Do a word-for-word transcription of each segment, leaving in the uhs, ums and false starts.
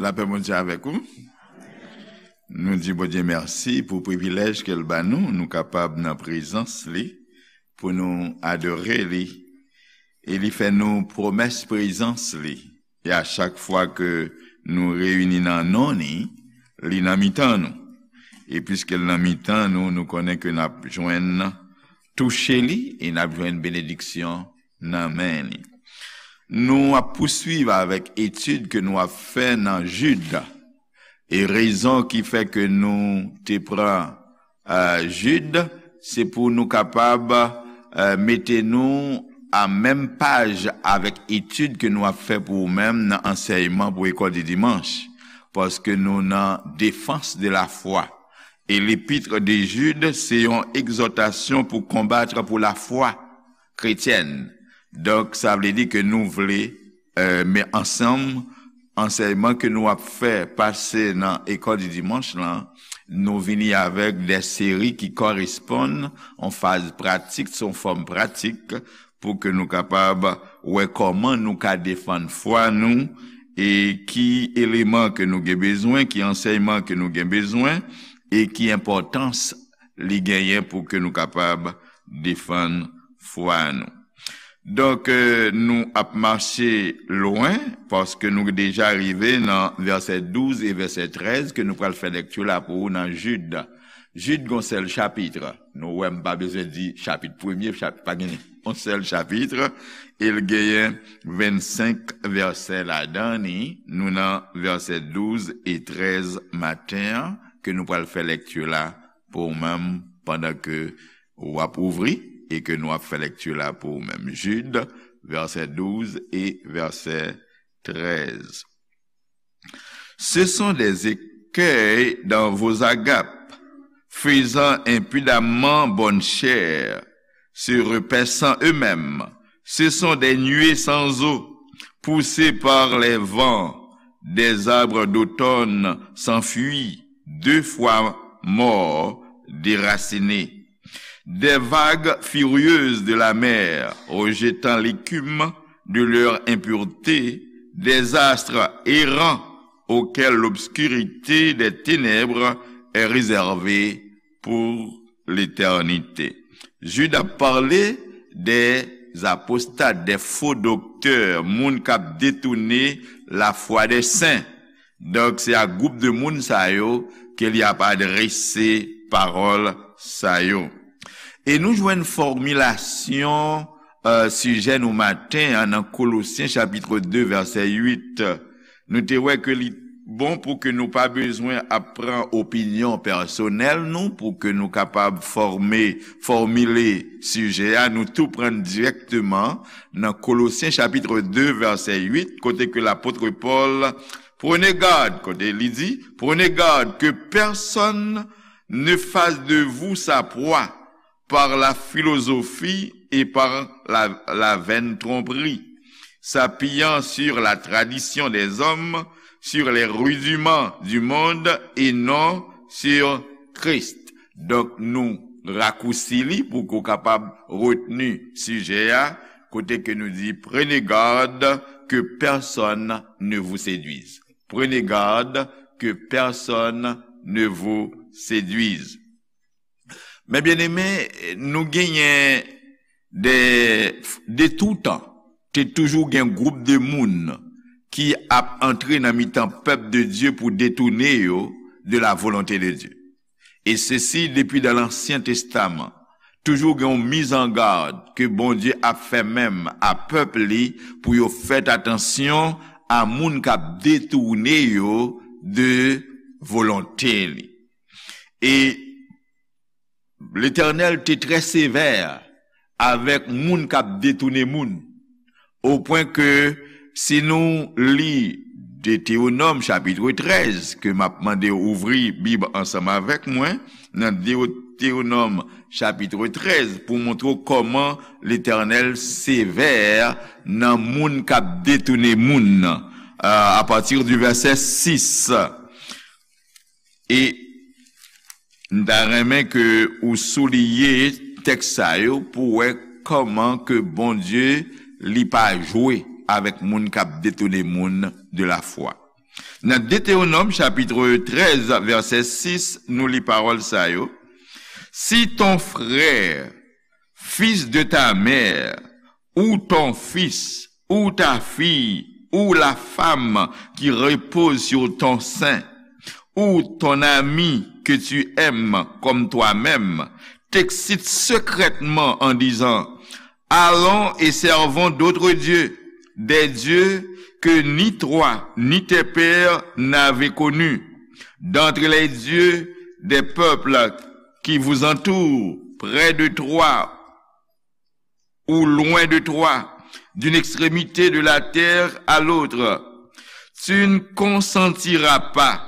Lapè Bondye avèk ou. Nou di Bondye mèsi pou privilèj ke l ba nou, nou kapab nan prezans li, pou nou adore li. E li fè nou pwomès prezans li. E a chak fwa ke nou reyini nan non li, li nan mitan nou. E piske l nan mitan nou, nou konnen ke n ap jwenn touche li e n ap jwenn benediksyon nan men li. Nou ap pouswiv avèk etid ke nou ap fè nan Jid. E rezon ki fè ke nou te pran, eh, Jid, se pou nou kapab, eh, mete nou a menm paj avèk etid ke nou ap fè pou ou menm nan ansèyman pou lekòl di dimanch. Paske nou nan défense de la foi. E l'épître de Jude, se yon egzòtasyon pou konbat pou lafwa kretyèn. Donk, sa vle di ke nou vle, eh, men ansanm, ansèyman ke nou ap fè pase nan lekòl di dimanch lan, nou vini avèk de seri ki koresponn an faz pratik, se yon fòm pratik, pou ke nou kapab wè kòman nou ka defann fwa nou, e ki eleman ke nou gen bezwen, ki ansèyman ke nou gen bezwen, e ki enpòtans li genyen pou ke nou kapab defann fwa nou. Donk, eh, nou ap mache lwen, paske nou deja rive nan vèsè douz e vèsè trèz ke nou pral fè lekti la pou ou nan Jid. Jid gon sèl chapit. Nou wè m pa bezwen di chapit premye, chapit pa gen yon sèl chapit. E l genyen vennsenk vèsè ladan li. Nou nan vèsè douz e trèz maten an, ke nou pral fè lekti la pou ou menm pandan ke w ap ouvri e ke nou ap fè lekti la pou ou menm. Jid, vèsè douz e vèsè trèz. Ce sont des écueils dans vos agapes, faisant impudemment bonne chère, se repaissant eux-mêmes. Ce sont des nuées sans eau, poussées par les vents, des arbres d'automne sans fruits, deux fois morts, déracinés. Des vagues furieuses de la mer, rejetant l'écume de leur impureté, des astres errants auxquels l'obscurité des ténèbres est réservée pour l'éternité. Jid ap pale des apostat, des faux docteurs, moun k ap detounen lafwa des saints. Donk, se a gwoup de moun sa yo ke li ap adrese pawòl sa yo. E nou jwenn fòmilasyon, eh, sijè nou maten an nan Kolosyen chapit de vèsè uit. Nou te wè ke li bon pou ke nou pa bezwen ap pran opinyon pèsonèl nou, pou ke nou kapab fòme, fòmile sijè a, nou tou pran dirèkteman nan Kolosyen chapit de vèsè uit, kote ke lapot Pòl, prenez garde, kote li di, prenez garde que personne ne fasse de vous sa proie par la philosophie et par la, la vaine tromperie, s'appuyant sur la tradition des hommes, sur les rudiments du monde et non sur Christ. Donk, nou rakousi li pou ke w kapab retni sijè a, kote ke nou di, prenez garde que personne ne vous séduise. Prenez garde que personne ne vous séduise. Men byeneme, nou genyen de, de toutan, te toujou gen gwoup de moun ki ap antre nan mitan pèp de Dye pou detounen yo de la volonte de Dye. E sesi depi dan Lansyen Testaman. Toujou gen yon mizangad ke Bondye ap fè menm a pèp li pou yo fèt atansyon a moun k ap detounen yo de volonte li. E Letènèl te trè sevè avèk moun k ap detounen moun, opwen ke si nou li Detewonòm chapit trèz, ke m ap mande w ouvri Bib ansanm avèk mwen, nan Detewonòm chapit trèz, pou montre w kòman Letènèl sevè nan moun k ap detounen moun nan, a, apati di vèsè sis. E m ta renmen ke ou souliye tèks sa yo pou w wè kòman ke Bondye, li pa jwe avèk moun k ap detounen moun de lafwa. Nan Detewonòm chapit trèz, vèsè sis, nou li pawòl sa yo. Si ton frère, fils de ta mère, ou ton fils, ou ta fille, ou la femme qui repose sur ton sein, ou ton ami que tu aimes comme toi-même, t'excite secrètement en disant, allons et servons d'autres dieux, des dieux que ni toi ni tes pères n'avez connus, d'entre les dieux des peuples qui vous entourent, près de toi ou loin de toi, d'une extrémité de la terre à l'autre. Tu ne consentiras pas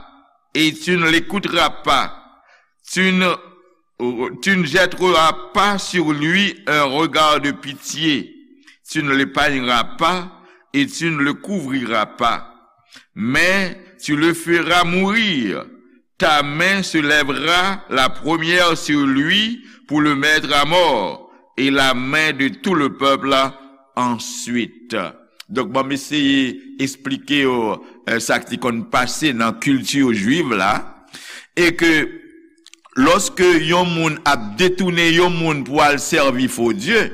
et tu ne l'écouteras pas. Tu ne, tu ne jetteras pas sur lui un regard de pitié. Tu ne l'épargneras pas et tu ne le couvriras pas. Mais tu le feras mourir. Ta main se lèvera la première sur lui pour le mettre à mort, et la main de tout le peuple ensuite. Donk, ban m eseye eksplike w, eh, sa k te konn pase nan kilti jwiv la, e ke lòske yon moun ap detounen yon moun pou al sèvi fo dye,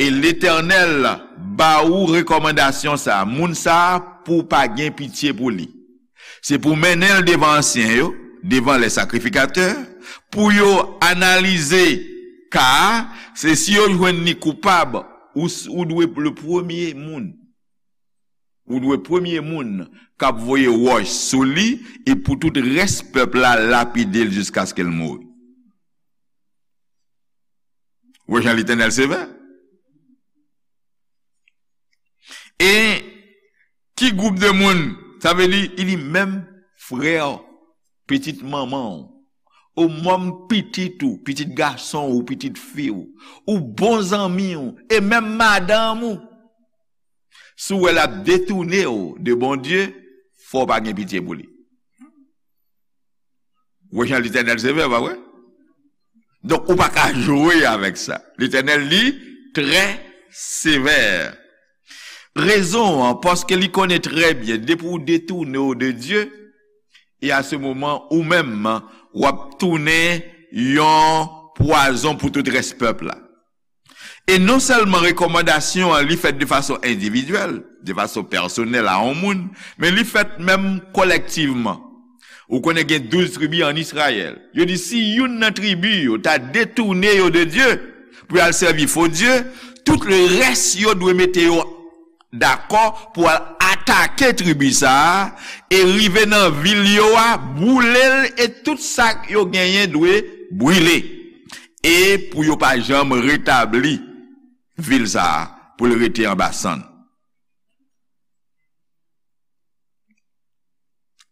e Letènèl ba ou rekòmandasyon sa a, moun sa a pou w pa gen pitye pou li. Se pou w mennen l devan ansyen yo, devan les sacrificateurs, pou yo analize ka a, se si yo jwenn li koupab, ou, s- ou dwe le premye moun. Ou dwe premye moun k ap voye wòch sou li, e pou tout rès pèp la lapide l jiskaske l mouri. Wè jan Letènèl sevè. E ki gwoup de moun? Sa vle di, li di menm frè w, pitit manman w, ou menm pitit ou, pitit gason ou, pitit fi w, ou bon zanmi w, e menm madanm ou. Si w wè l ap detounen w de Bondye, fò w pa gen pitye pou li. Wè jan Letènèl sevè, pa vre? Donk, ou pa ka jwe avèk sa. Letènèl, li, trè sevè. Rezon an, paske li konnen trè byen, depi w detounen w de Dye, e a se moman, ou menm, w ap tounen yon pwazon pou tout rès pèp la. E non sèlman rekòmandasyon an, li fèt de fason endividyèl, de fason pèsonèl a yon moun, men li fèt menm kolèktivman. Ou konnen gen douz tribi ann Izrayèl. Yo di si youn nan tribi yo ta detounen yo de Dye pou y al sèvi fo dye, tout le rès yo dwe mete yo dakò pou al atake tribi sa a e rive nan vil yo a, boule l e tout sa yo genyen dwe brile. E pou yo pa janm retabli vil sa a, pou l rete anba sann.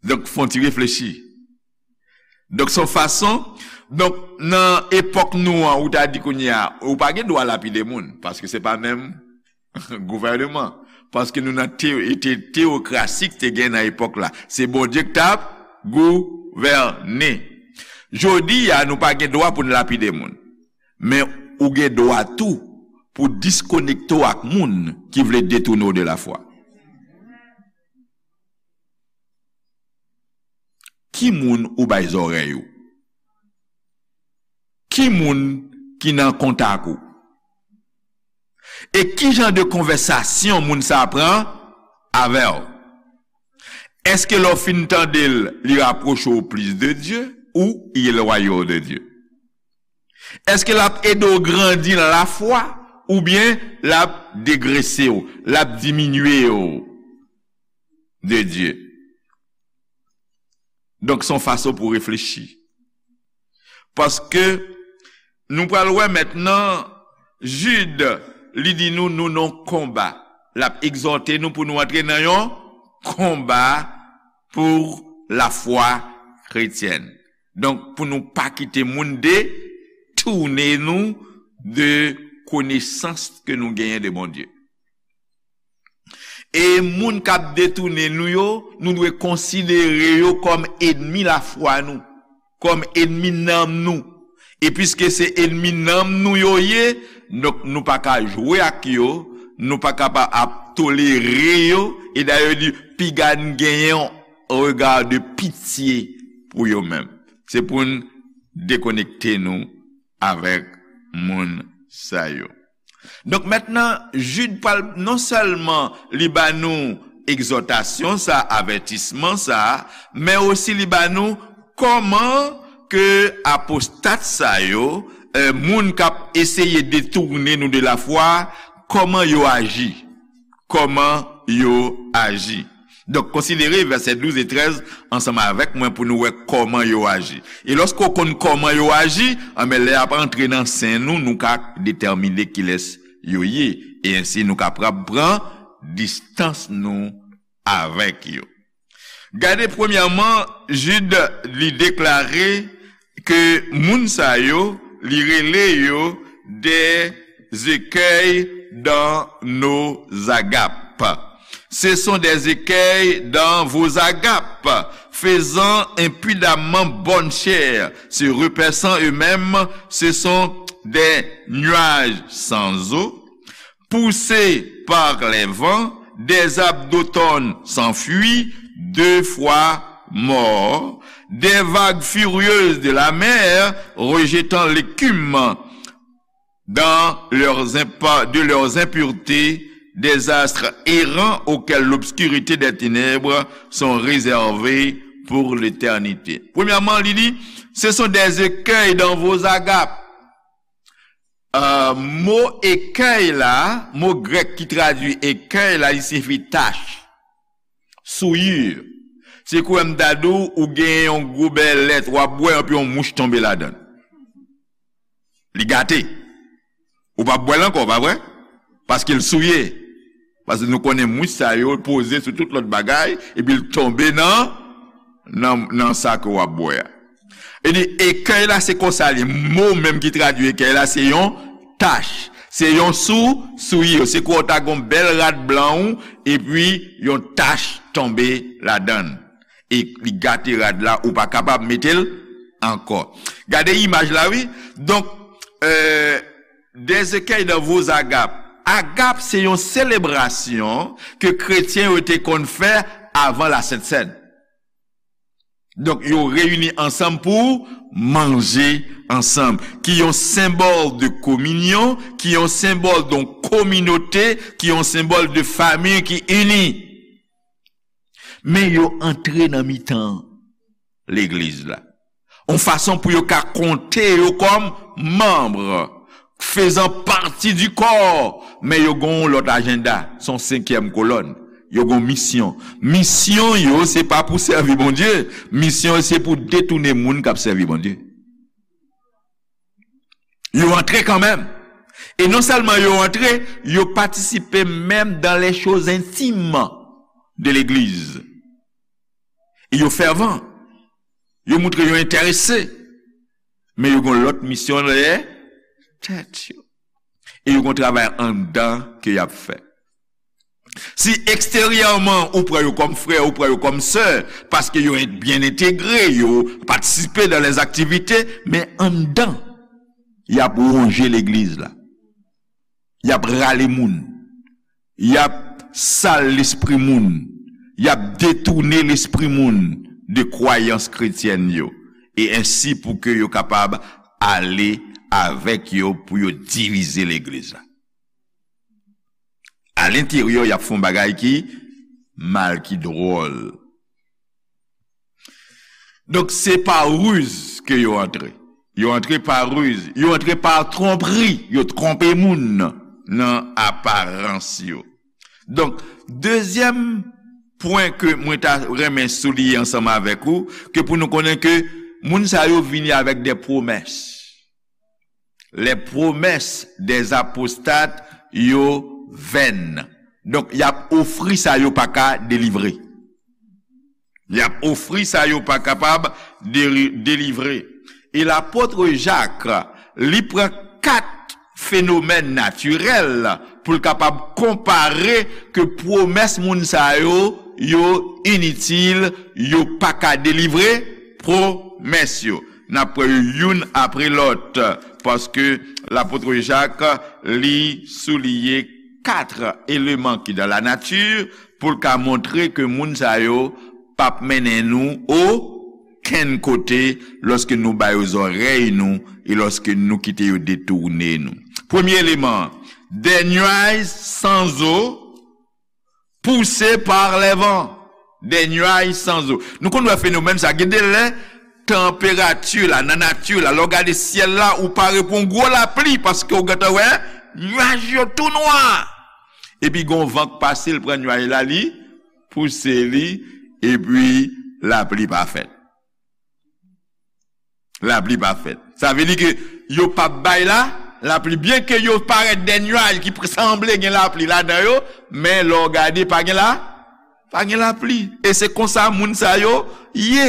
Donk, fè yon ti reflechi. Donk, se yon fason, donk, nan epòk nou an, ou ta di kounye a, ou pa gen dwa lapide moun, paske se pa menm gouvèneman. Paske nou nan te-, te-, teokrasi ki te gen nan epòk la. Se Bondye ki t ap gouvène. Jodi a, nou pa gen dwa pou n lapide moun. Men ou gen dwa tou pou diskonekte w ak moun ki vle detounen w de lafwa. Ki moun ou bay zòrèy ou? Ki moun ki nan kontak ou? E ki jan de konvèsasyon moun sa a pran avè w? Èske lè w fin tande l, li rapwoche w plis de Dye ou li elwaye w de Dye? Èske l ap ede w grandi nan lafwa oubyen l ap degrese w, l ap diminye w de Dye? Donk, se yon fason pou w reflechi. Paske nou pral wè mentnan, Jid, li di nou, nou nan yon konba. L ap egzòte nou pou nou antre nan yon konba pou lafwa kretyèn. Donk, pou nou pa kite moun detounen nou de konesans ke nou genyen de Bondye. E moun k ap detounen nou yo, nou dwe konsidere yo kòm ènmi lafwa nou, kòm ènmi nanm nou. E piske se ènmi nanm nou yo ye, donk nou pa ka jwe ak yo, nou pa ka pa ap tolere yo. E dayè yo di, piga n genyen yon rega de pitye pou yo menm. Se pou n dekonekte nou avèk moun sa yo. Donk mentnan, Jid pral non sèlman li ba nou egzòtasyon sa, avètisman sa, men osi li ba nou kòman ke apostat sa yo, eh, moun k ap eseye detounen nou de lafwa, kòman yo aji. Kòman yo aji. Donk, konsidere vèsè douz e trèz ansanm avèk mwen pou nou wè kòman yo aji. E lòske w konn kòman yo aji, anben, lè y ap antre nan sen nou, nou ka detèmine kilès yo ye. E ensi, nou kapab pran distans nou avèk yo. Gade, premyèman, Jid, li deklare ke moun sa yo, li rele yo des écueils dans nos agapes. Ce sont des écueils dans vos agapes, faisant impudemment bonne chère, se repaissant eux-mêmes, ce sont des nuages sans eau, poussés par les vents, des arbres d'automne sans fruits, deux fois morts, des vagues furieuses de la mer rejetant l'écume dans leurs impa-, de leurs impuretés, des astres errants auxquels l'obscurité des ténèbres sont réservées pour l'éternité. Premyèman, li di, ce sont des écueils dans vos agapes. Euh, mo ekèy la, mo grèk ki tradui ekèy la, li siyifi tach, souillure. Se kou m ta di w, ou gen yon gobe lèt, w ap bwè, epi yon mouch tonbe ladan l. Li gate. Ou p ap bwè l ankò, pa vre? Paske l souye. Paske nou konnen mouch sa yo poze sou tout lòt bagay, epi l tonbe nan, nan, nan sa ke w ap bwè a. E di, ekèy la, se konsa li. Mo menm ki tradui ekèy la, se yon tach. Se yon sou, souillure. Se kou w ta gon bèl rad blan ou, epi yon tach tonbe ladan l. E li gate rad la, ou pa kapab mete l ankò. Gade imaj la, wi. Donk, euh, des écueils dans vos agapes. Agap, se yon selebrasyon ke kretyen yo te konn fè avan la Sent Sèn. Donk, yo reyini ansanm pou manje ansanm, ki yon senbòl de kominyon, ki yon senbòl de yon kominote, ki yon senbòl de fanmi ki ini. Men yo antre nan mitan legliz la. Yon fason pou yo ka konte yo kòm manm, faisant partie du corps, men yo gon yon lòt ajanda, se yon senkyèm kolòn. Yo gon misyon. Misyon yo, se pa pou sèvi Bondye. Misyon yo, se pou detounen moun k ap sèvi Bondye. Yo antre kanmenm. E non sèlman yo antre, yo patisipe menm dans les choses intimes de l'église. E yo fèvan. Yo montre yo enterese. Men yo gon lòt misyon dèyè tèt yo. E yo gon travay anndan ke y ap fè. Si eksteryèman ou pran yo kòm frè, ou pran yo kòm sè, paske yo en-, byen entegre, yo patisipe dans les activités, men anndan, y ap wonje legliz la. Y ap rale moun. Y ap sal lespri moun. Y ap detounen lespri moun de kwayans kretyèn yo. E ensi pou ke yo kapab ale avèk yo pou yo divize legliz la. Alenteryè, y ap fè yon bagay ki mal, ki dwòl. Donk, se pa riz ke yo antre. Yo antre pa riz. Yo antre pa twonpri. Yo twonpe moun nan aparans yo. Donk, dezyèm pwen ke mwen ta renmen souliye ansanm avèk ou, ke pou nou konnen ke moun sa yo vini avèk de pwomès. Les promesses des apostates yo vèn. Donk, y ap ofri sa yo pa ka delivre. Y ap ofri sa yo pa kapab deri-, delivre. E lapot Jak, li pran kat fenomèn natirèl pou l kapab konpare ke pwomès moun sa yo, yo initil, yo pa ka delivre pwomès yo. N ap pran yo youn apre lòt, paske lapot Jak, li souliye kat eleman ki dans la nature pou l ka montre ke moun sa yo p ap mennen nou okenn kote lòske nou ba yo zòrèy nou e lòske nou kite yo detounen nou. Premye eleman an, des nuages sans eau poussés par les vents. Des nuages sans eau. Nou konn wè fenomèn sa. Gen de lè, tanperati la, nan nati la, lè w gade syèl la, ou pare pou yon gwo lapli, paske w gentan wè, nuaj yo tou nwa. Epi gon van k pase, l pran nuaj la, li pouse li, epi lapli pa fèt. Lapli pa fèt. Sa vle di ke yo p ap bay la, lapli. Byenke yo parèt de nuaj ki pr-, sanble gen lapli ladan yo, men lè w gade, pa gen la, pa gen lapli. E se konsa moun sa yo ye.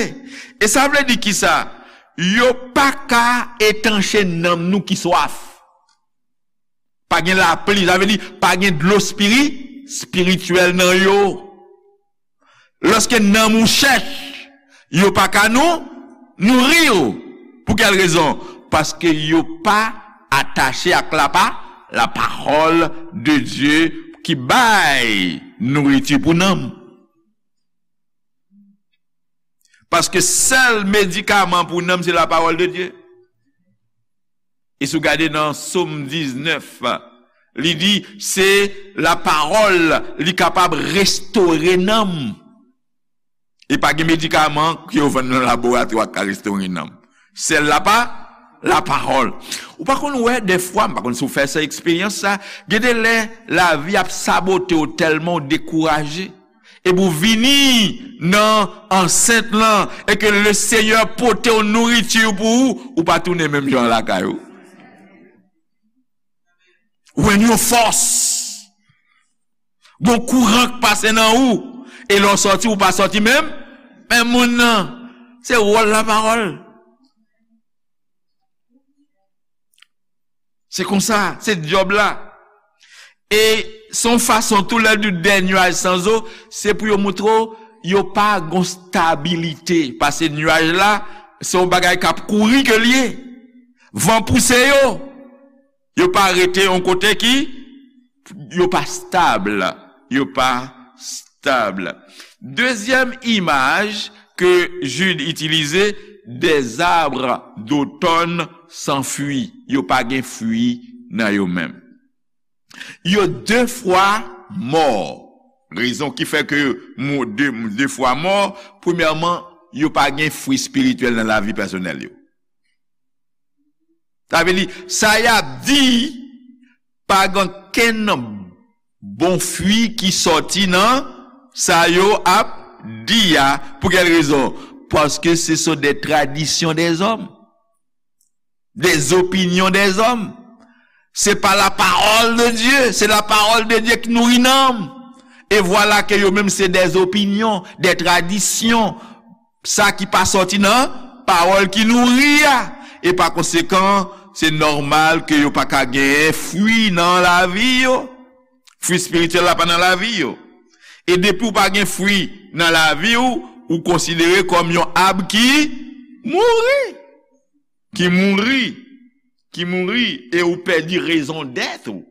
E sa vle di kisa? Yo pa ka etanche nanm nou ki swaf. Pa gen lapli, sa vle di pa gen dlo espiri-, espirityèl nan yo. Lòske nanm ou chèch, yo pa ka nou, nouri w. Pou kèl rezon? Paske yo pa atache ak la pa-, la parole de Dieu ki bay nouriti pou nanm. Paske sèl medikaman pou nanm, se la parole de Dieu. E si w gade nan Sòm diznèf, li di, se lapawòl li kapab restore nanm. E pa gen medikaman ke yo vann nan laboratwa k ka restore nanm. Sèl lapa-, lapawòl. Ou pa konn wè dèfwa, m pa konn si w fè sa eksperyans sa, gen de lè lavi ap sabote w tèlman w dekouraje. Epi w vini nan ansent lan, e ke le Senyè pote yon nouriti pou ou, ou pa tounen menm jan lakay ou. Ou jwenn yon fòs. Gon kouran k pase nan ou, e lè w sòti, ou pa sòti menm, menm moun nan. Se wòl lapawòl. Se konsa, se djòb la. E se yon fason tou lè di des nuages sans eau, se pou yo montre w yo pa gon stabilite. Paske nuaj la, se yon bagay k ap kouri ke l ye. Van pouse yo. Yo pa rete yon kote ki, yo pa stab. Yo pa stab. Dezyèm imaj ke Jude itilize, des arbres d'automne sans fruits. Yo pa gen fwi nan yo menm. Yo de fwa mò. Rezon ki fè ke mo de, de fwa mò, premyèman, yo pa gen fwi espirityèl nan lavi pèsonèl yo. Sa vle di, sa y ap di, pa gen kenn bon fwi ki sòti nan sa yo ap di a. Pou kèl rezon? Paske ce sont des traditions des hommes, des opinions des hommes. Se pa la parole de Dieu, se la parole de Dieu ki nouri nanm. E vwala ke yo menm se des opinions, des traditions. Sa ki pa sòti nan pawòl ki nouri a. E pa konsekan, se nòmal ke yo pa ka genyen fwi nan lavi yo. Fwi espirityèl la pa nan lavi yo. E depi w pa gen fwi nan lavi w, ou konsidere kòm yon ab ki mouri. Ki mouri. Ki mouri. E ou pèdi rezon dèt ou.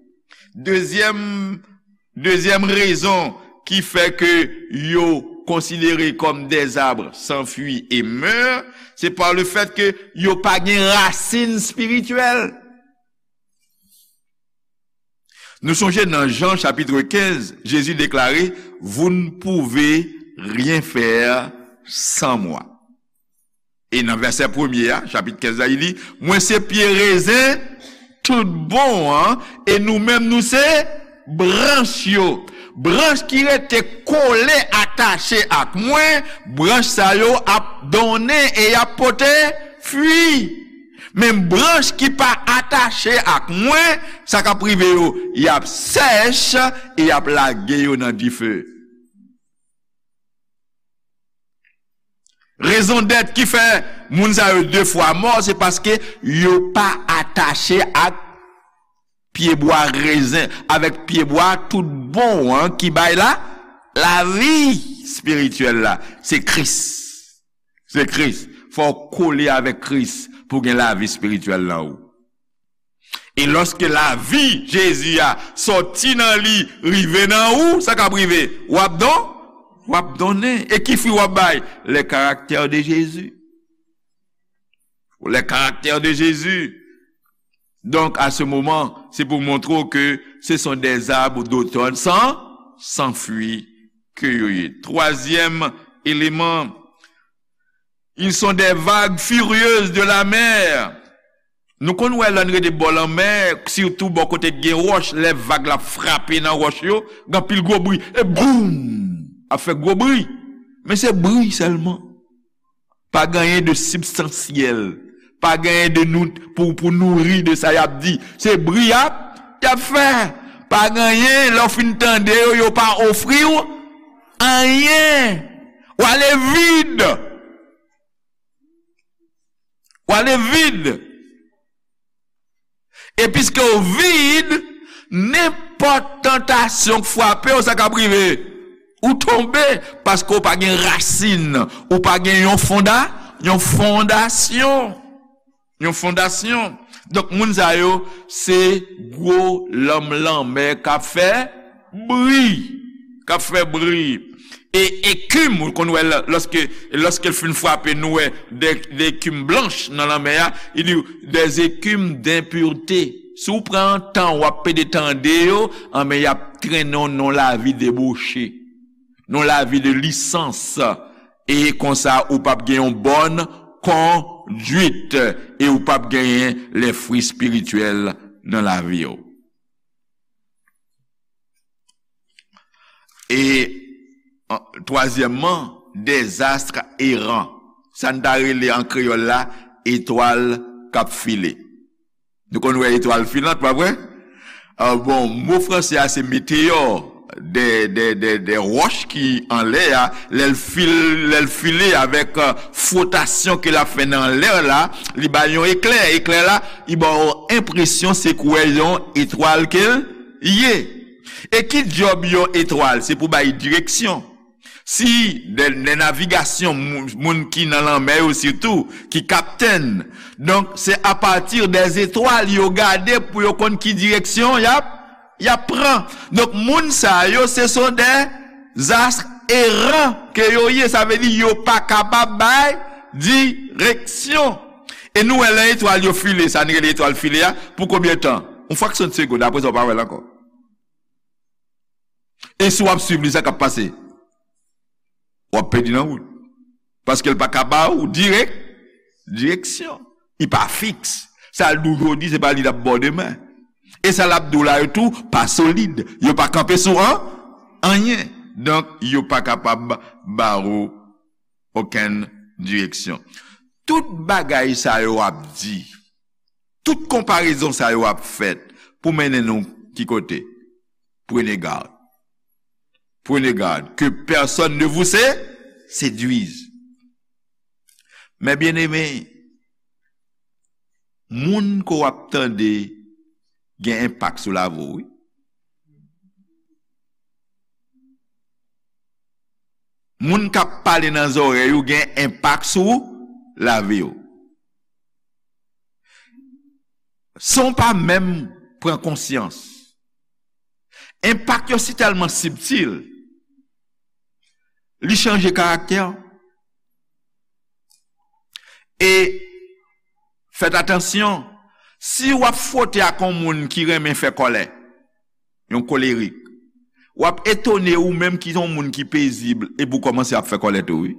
Dezyèm, dezyèm rezon ki fè ke yo konsidere kòm des arbres sans fruits et meurent, se pa le fèt ke yo pa gen rasin espirityèl. Nou sonje nan Jan chapit kenz, Jezi deklare, vous ne pouvez rien faire sans moi. E nan vèsè premye a, chapit kenz la, li di, mwen se pye rezen tout bon an, e nou menm nou se branch yo. Branch ki rete kole, atache ak mwen, branch sa yo ap donnen e y ap pote fwi. Men branch ki pa atache ak mwen, sa k ap rive yo, y ap sèch e y ap lage yo nan dife. Rezon dèt ki fè moun sa yo de fwa mò, se paske yo pa atache ak pyebwa rezen, avèk pyebwa tout bon an ki bay la, lavi espirityèl la. Se Kris. Se Kris. Fò w kole avèk Kris pou gen lavi espirityèl nan ou. E lòske lavi Jezi a sòti nan li, rive nan ou, sa k ap rive? W ap don, w ap donnen. E ki fwi w ap bay? Le caractère de Jésus. Le caractère de Jésus. Donc, à ce moment, c'est pour montrer que ce sont des arbres d'automne sans, sans fruits que yo ye. Troisième élément, ils sont des vagues furieuses de la mer. Nou konn wè lè n rete bò lanmè, sitou bò kote k gen wòch, lè vag la frape nan wòch yo, gen anpil gwo bri. E boum! Ap fè gwo bri. Men se bri sèlman. Pa gen anyen de sibstansyèl. Pa gen anyen de nou, pou, pou nouri de sa y ap di. Se bri y ap, y ap fè. Pa gen anyen, lè w fin tande yo, yo pa ofri w anyen. W ale vid. W ale vid. E piske w vid, nenpòt tantasyon k frape w, sa k ap rive? Ou tonbe, paske w pa gen rasin, ou pa gen yon fonda, yon fondasyon. Yon fondasyon. Donk, moun sa yo, se gwo lanm lanmè k ap fè bri, k ap fè bri. E ekim, ou konn wè lè, lòske, lòske l fin frape, nou wè de, de ekim blanch nan lanmè a, li di, des écumes d'impureté. Si w pran tan, w ap pede tande yo, anben, y ap trennen w nan lavi deboche, nan lavi de lisans. E konsa, ou p ap gen yon bòn konduit, e ou p ap genyen les fruits spirituels nan lavi w. E, an, twazyèmman, des astres errants. Sa n ta rele an kreyòl la, etwal k ap file. Nou konn wè etwal filant, pa vre? Ah, bon, mo franse a se meteyò, de, de, de, de wòch ki anlè a, lè l fil-, lè l file avèk, euh, fwotasyon ke l ap fè nan lè la, li bay yon eklè. Eklè la, li ba w enpresyon se koulè yon etwal ke l ye. E ki djòb yon etwal? Se pou bay direksyon. Si de, de navigasyon, moun, moun ki nan lanmè yo sitou, ki kaptèn. Donk, se apati dèzetwal yo gade pou yo konn ki direksyon y ap, y ap pran. Donk, moun sa yo, se son des astres errants ke yo ye. Sa vle di, yo pa kapab bay direksyon. E nou wè lè etwal yo file, sa n rele etwal file a, pou konbyen tan? Yon fraksyon de segonn, apre sa, w pa wè l ankò. E si w ap swiv li, sa k ap pase? W ap pèdi nan wout. Paske l pa ka ba ou dirèk, direksyon. Li pa fiks. Sa l di w jodi, se pa li l ap ba w demen. E sa l ap di w la yo tou, pa solid. Yo pa kanpe sou an, anyen. Donk, yo pa kapab ba ou okenn direksyon. Tout bagay sa yo ap di, tout konparezon sa yo ap fèt pou mennen nou ki kote? Prenez garde. Prenez garde que personne ne vous sé-, séduise. Mes bien-aimés, moun ke w ap tande gen enpak sou lavi w, wi. Moun k ap pale nan zòrèy ou gen enpak sou lavi w. San w pa menm pran konsyans. Enpak yo si tèlman sibtil, li chanje karaktè w. E fèt atansyon, si w ap fwote ak yon moun ki renmen fè kòlè, yon kolerik, w ap etone ou menm ki se yon moun ki pezib epi w kòmanse ap fè kòlè tou, wi.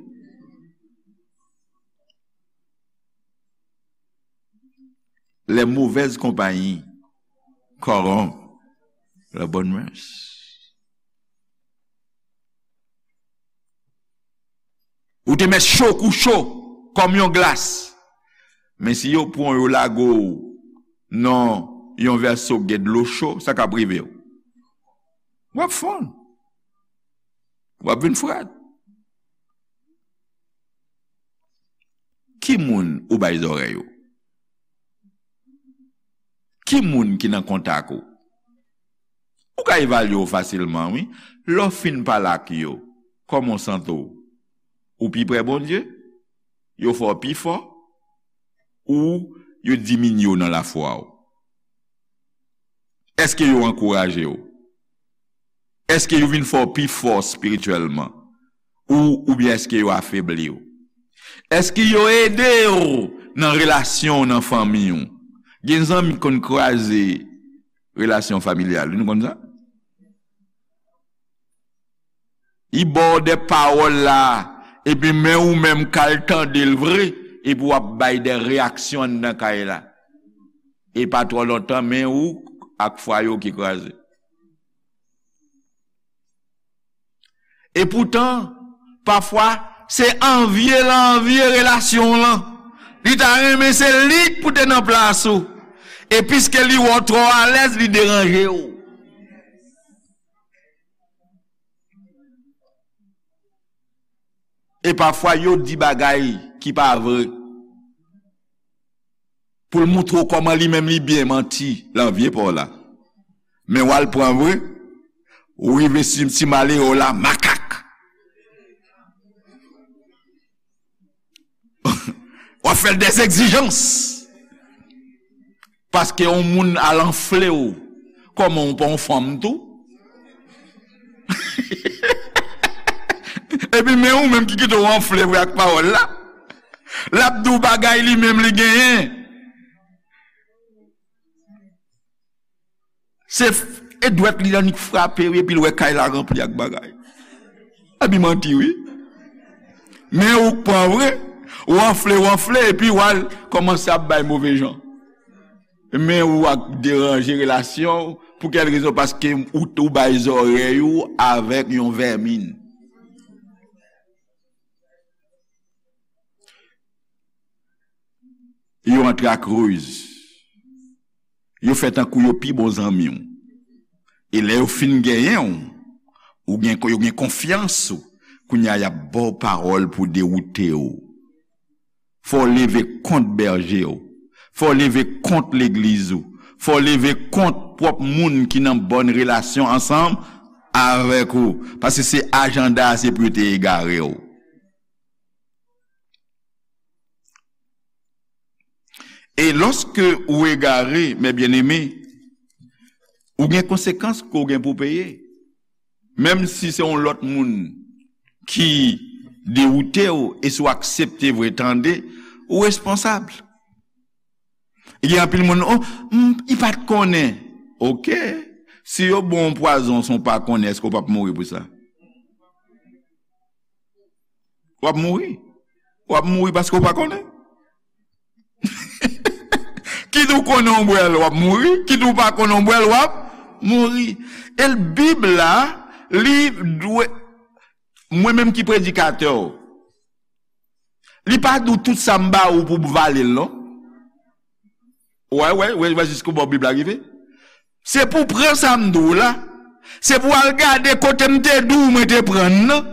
Les mauvaises compagnies corrompent les bonnes mœurs. Ou te mèt cho kou cho, kòm yon glas. Men si yo pran w, yo lage w nan yon vèso k gen dlo cho, sa k ap rive w? W ap fonn. W ap vin frèt. Ki moun ou bay zòrèy ou? Ki moun ki nan kontak ou? Ou ka evalye w fasilman, wi. Lè w fin pale ak yo, kòman w santi w? Ou pi pre Bondye? Yo fè w pi fò? Ou yo diminye w nan lafwa w? Èske yo ankouraje w? Èske yo vin fè w pi fò espirityèlman? Ou, oubyen èske yo afebli w? Èske yo ede w nan relasyon w nan fanmi w? Gen zanmi k konn kraze relasyon familyal, nou konn sa? Li ba w de pawòl la, epi men ou menm k al tande l vre, epi w ap bay de reyaksyon anndan kay la. E pa twò lontan, men ou ak fwaye w ki kraze. Epoutan, pafwa, se anvye l anvye relasyon w lan. Li ta renmen se li k pou te nan plas ou. E piske li wè w twò alèz, li deranje w. E pafwa, yo di bagay ki pa vre. Pou l moutre w kòman li menm li byen manti, l anvye pa w la. Men w al pran vre, ou rive sou ti malere w la, makak. W ap fè l dèzegzijans. Paske yon moun al anfle w, kòman w pa yon fanm tou? Epi men ou menm ki kite w anfle vre ak pawòl la. L ap di w bagay li menm li genyen. Se f-, e dwèt li annik frape wi, epi l wè kay la ranpli ak bagay. Epi manti wi. Men ou k pran vre, ou anfle, ou anfle, epi w al kòmanse ap bay move jan. Men ou ap deranje relasyon w, pou kèl rezon? Paske ou, ou bay zòrèy ou avèk yon vèmin. Yo antre ak riz. Yo fè tankou yo pi bon zanmi w. E lè yo fin genyen w, ou gen, yo gen konfyans ou, kounye a y ap ba w pawòl pou dewoute w. Fò w leve kont bèje w. Fò w leve kont legliz ou. Fò w leve kont pwòp moun ki nan bòn relasyon ansanm avèk ou. Paske se ajanda a, se pou yo te egare w. E lòske ou egare, mes bien-aimés, ou gen konsekans ke w gen pou peye. Menm si se yon lòt moun ki dewoute w, e si w aksepte vre tande, ou responsab. Gen anpil moun, "Oh, m, li pa t konnen." Oke. Si yo ba w yon pwazon san w pa konnen, èske w p ap mouri pou sa? W ap mouri. W ap mouri paske w pa konnen. Kit ou konnen w bwè l, w ap mouri. Kit ou pa konnen w bwè l, w ap mouri. E l, Bib la, li dwe, mwen menm ki predikatè w, li pa di w tout sa m ba ou pou w vale l, non. Wè, wè, wè, wè jiskobò Bib la rive. Se pou w pran sa m di w la. Se pou w al gade kote m te di w mwen te pran l nan.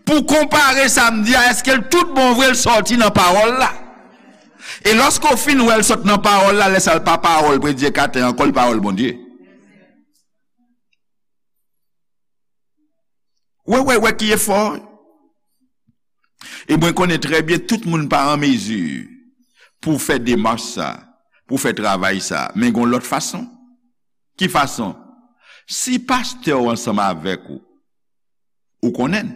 Pou w konpare sa m di a, èske l tout bon vre l sòti nan pawòl la. E lòske w fin wè l sot nan pawòl la, lè sa l pa pawòl predikatè ankò, l pawòl Bondye. Wè, wè, wè ki efò. E mwen konnen trè byen tout moun pa an mezi pou fè demach sa, pou fè travay sa. Men gon lòt fason. Ki fason? Si pastè w ansanm avèk ou, ou konnen l.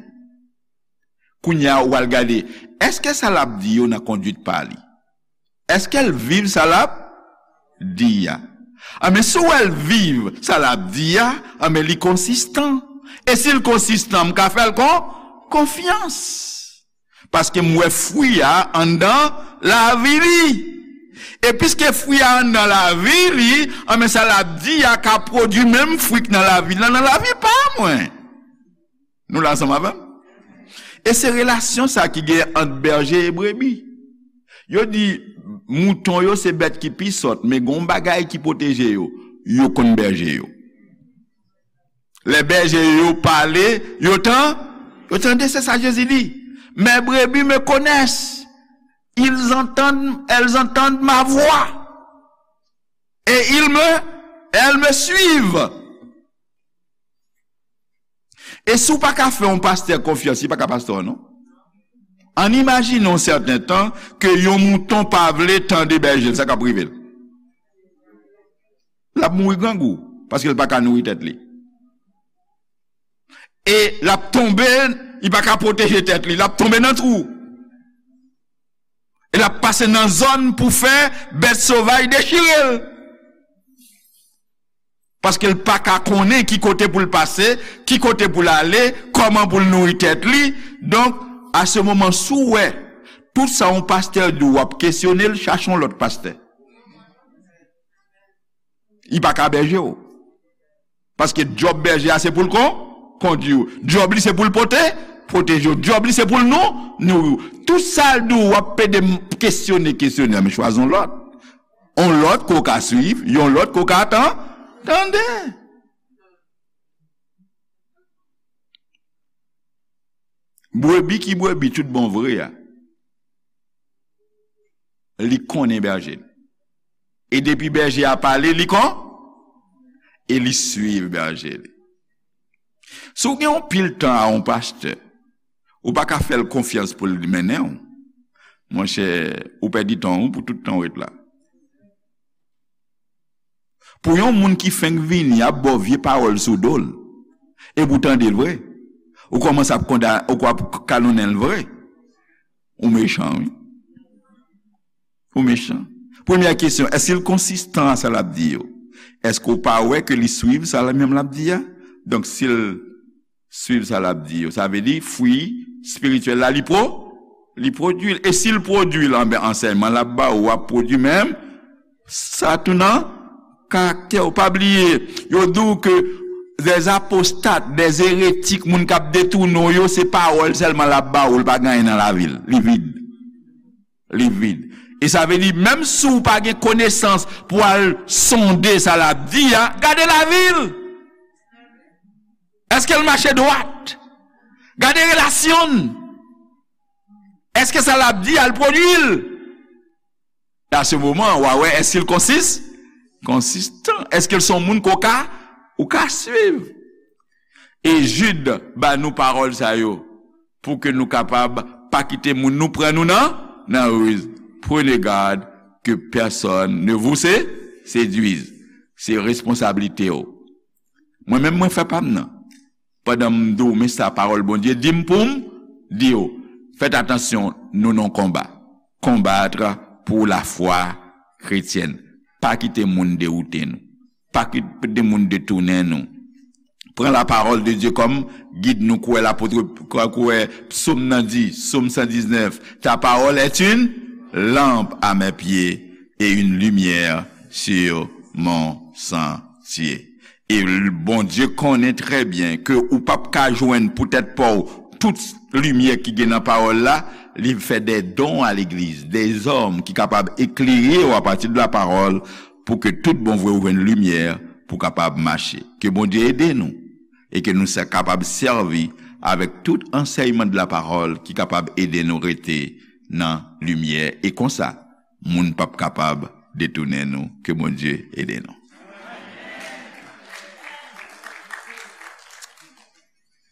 Kounye a, ou al gade, èske sa l ap di yo nan kondwit pa li? Èske l viv sa l ap di a? Anben, si w wè l viv sa l ap di a, anben, li konsistan. E si l konsistan, m ka fè l kon, konfyans. Paske m wè fwi a anndan lavi li. E piske fwi a anndan lavi li, anben, sa l ap di a ka pwodui menm fwi k nan lavi l lan nan lavi pa mwen. Nou la ansanm avè m? E se relasyon sa ki gen ant bèje e brebi. Yo di, mouton yo se bèt ki pi sòt, men gon bagay ki pwoteje yo. Yo konn bèje yo. Lè bèje yo pale, yo tan, yo tande, se sa Jezi di. Mes brebis me connaissent. Ils entendent, elles entendent ma voix. Et ils me, elles me suivent. E si w pa ka fè yon pastè konfyans, li pa ka pastè w non. Ann imajine yon sèten tan ke yon mouton pa vle tande bèje l, sa k ap rive l? L ap mouri grangou. Paske l pa ka nouri tèt li. E l ap tonbe, li pa ka pwoteje tèt li, l ap tonbe nan twou. E l ap pase nan zòn pou fè bèt sovaj dechire l. Paske l pa ka konnen ki kote pou l pase, ki kote pou l ale, kòman pou l nouri tèt li. Donk, a se moman, si w wè tout sa yon pastè di w, w ap kesyone l, chache yon lòt pastè. Li pa ka bèje w. Paske djòb bèje a se pou l kon, kondui w. Djòb li se pou l pote, pwoteje w. Djòb li se pou l nou, nouri w. Tout sa l di w, w ap pede m kesyone, kesyone, men chwazi yon lòt. Yon lòt ke w ka swiv, yon lòt ke w ka tan, tande. Brebi ki brebi tout bon vre a, li konnen bèje l. E depi bèje a pale, li kon, e li swiv bèje li. Si w gen yon pil tan a yon pastè, ou pa ka fè l konfyans pou l mennen w, monchè, ou pèdi tan w pou tout tan w ret la. Pou yon moun ki fenk vini ap ba w vye pawòl sou do l, epi w tande l vre, ou kòmanse ap konda, ou ap kalonnen l vre, ou mechan, wi. Ou mechan. Premyè kesyon, èske l konsistan a sa l ap di yo? Èske w pa wè ke li swiv sa l menm l ap di a? Donk, si l swiv sa l ap di yo, sa vle di fwi espirityèl la, li pwo-, li pwodui l. E si l pwodui l, anben, ansèyman l ap ba ou ap pwodui menm. Sa tou nan karaktè w. Pa bliye, yo di w ke des apostates, des hérétiques, moun k ap detounen w yo, se pawòl sèlman l ap ba ou, l pa gen anyen nan lavi l. Li vid. Li vid. E sa vle di, menm si w pa gen konesans pou al sonde sa l ap di a, gade lavi l. Èske l mache dwat? Gade relasyon l. Èske sa l ap di a, l pwodui l? A se moman, w a wè, èske l konsis-, konsistan? Èske l se yon moun ke w ka, ou ka swiv? E Jid ba nou pawòl sa yo, pou ke nou kapab pa kite moun nou pran nou nan, nan riz. Prenez garde que personne ne vous sé-, séduise. Se responsablite w. Mwen menm, mwen fè pa m nan. Pandan m di w, men sa pawòl Bondye di m pou m di w, fèt atansyon, nou nan konba. Combattre pour la foi chrétienne. Pa kite moun dewoute nou. Pa kite moun detounen nou. Pran la parole de Dieu comme guide nou, kwè lapot, kwè, kwè psaume nan di, psaume cent dix-neuf, ta parole est une lampe à mes pieds et une lumière sur mon sentier. E l-, Bondye konnen trè byen ke ou p ap ka jwenn pou tèt pa w tout limyè ki gen nan pawòl la, li fè des dons à l'église, des hommes ki kapab eklere w apati de la parole, pou ke tout bon vre ou jwenn limyè pou kapab mache. Ke Bondye ede nou e ke nou sa kapab sèvi avèk tout ansèyman de la parole ki kapab ede nou rete nan limyè. E konsa, moun p ap kapab detounen nou. Ke Bondye ede nou.